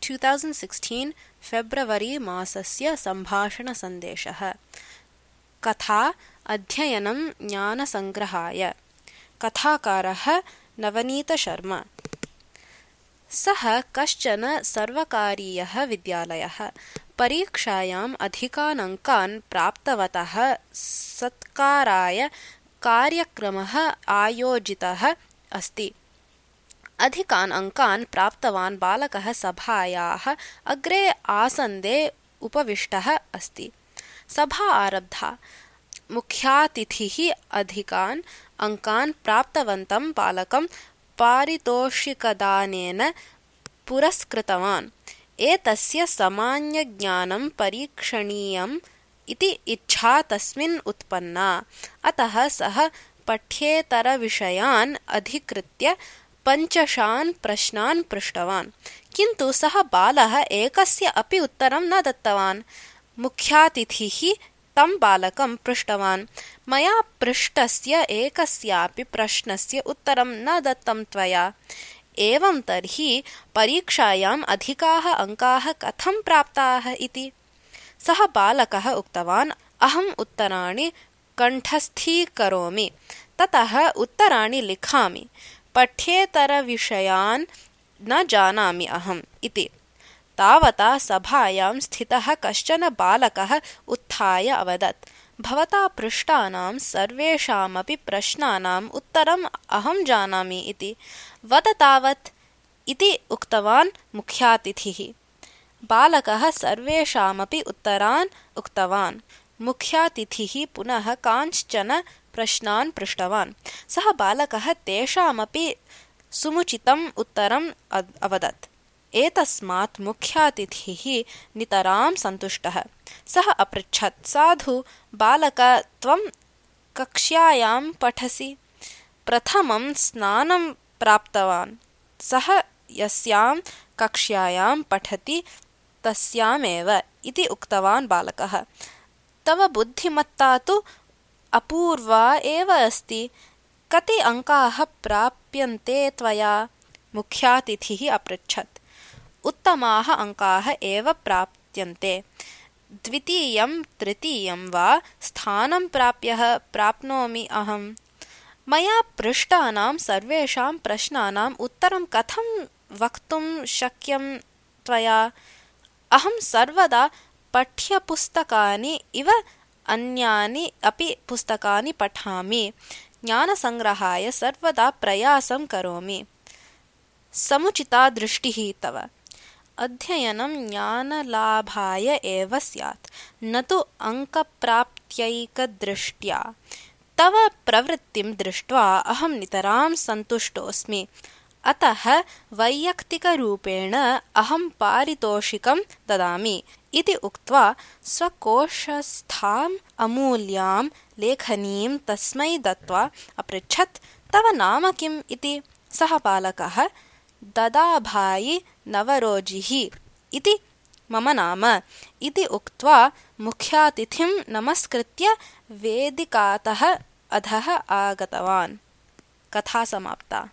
2016 फेब्रवरी मासस्य सम्भाषणसन्देशः। कथा अध्ययनं ज्ञानसङ्ग्रहाय। कथाकारः नवनीतशर्मा। सः कश्चन सर्वकारीयः विद्यालयः। परीक्षायाम् अधिकान् अङ्कान् प्राप्तवतः सत्काराय कार्यक्रमः आयोजितः अस्ति। अधिकान् अङ्कान् प्राप्तवान् बालकः सभायाः अग्रे आसन्दे उपविष्टः अस्ति। सभा आरब्धा। मुख्यातिथिः अधिकान् अङ्कान् प्राप्तवन्तं बालकं पारितोषिकदानेन पुरस्कृतवान्। एतस्य सामान्यज्ञानं परीक्षणीयम् इति इच्छा तस्मिन् उत्पन्ना। अतः सः पठ्येतरविषयान् अधिकृत्य 5 प्रश्नान् पृष्टवान्। किन्तु सः बालः एकस्य अपि उत्तरं न दत्तवान्। मुख्यातिथिः तं बालकं पृष्टवान्, मया पृष्टस्य एकस्यापि प्रश्नस्य उत्तरं न दत्तं त्वया। एवं तर्हि परीक्षायाम् अधिकाः अङ्काः कथं प्राप्ताः इति। सः बालकः उक्तवान्, अहम् उत्तराणि कण्ठस्थीकरोमि, ततः उत्तराणि लिखामि। पठ्येतरविषयान् न जानामि अहम् इति। तावता सभायां स्थितः कश्चन बालकः उत्थाय अवदत्, भवता पृष्टानां सर्वेषामपि प्रश्नानाम् उत्तरम् अहं जानामि इति। वद तावत् इति उक्तवान् मुख्यातिथिः। बालकः सर्वेषामपि उत्तरान् उक्तवान्। मुख्यातिथिः पुनः कांश्चन प्रश्नान् पृष्टवान्। सः बालकः तेषामपि समुचितम् उत्तरम् अवदत्। एतस्मात् मुख्यातिथिः नितरां सन्तुष्टः। सः अपृच्छत्, साधु बालक, त्वं कक्ष्यायां पठसि? प्रथमं स्नानं प्राप्तवान्। सः यस्यां कक्ष्यायां पठति तस्यामेव इति उक्तवान् बालकः। तव बुद्धिमत्ता तु अपूर्वा एव अस्ति। कति अङ्काः प्राप्यन्ते त्वया? मुख्यातिथिः अपृच्छत्। उत्तमाः अङ्काः एव प्राप्यन्ते। द्वितीयं तृतीयं वा स्थानं प्राप्नोमि अहम्। मया पृष्टानां सर्वेषां प्रश्नानाम् उत्तरं कथं वक्तुं शक्यं त्वया? अहं सर्वदा पाठ्यपुस्तकानि इव अन्यानि अपि पुस्तकानि पठामि। ज्ञानसङ्ग्रहाय सर्वदा प्रयासं करोमि। समुचिता दृष्टिः तव। अध्ययनं ज्ञानलाभाय एव स्यात्, न तु अङ्कप्राप्त्यैकदृष्ट्या। तव प्रवृत्तिं दृष्ट्वा अहं नितरां सन्तुष्टोऽस्मि। अतः वैयक्तिकरूपेण अहं पारितोषिकं ददामि इति उक्त्वा स्वकोशस्थाम् अमूल्यां लेखनीं तस्मै दत्त्वा अपृच्छत्, तव नाम किम् इति। सः बालकः, ददाभाई नवरोजिः इति मम नाम इति उक्त्वा मुख्यातिथिं नमस्कृत्य वेदिकातः अधः आगतवान्। कथा समाप्ता।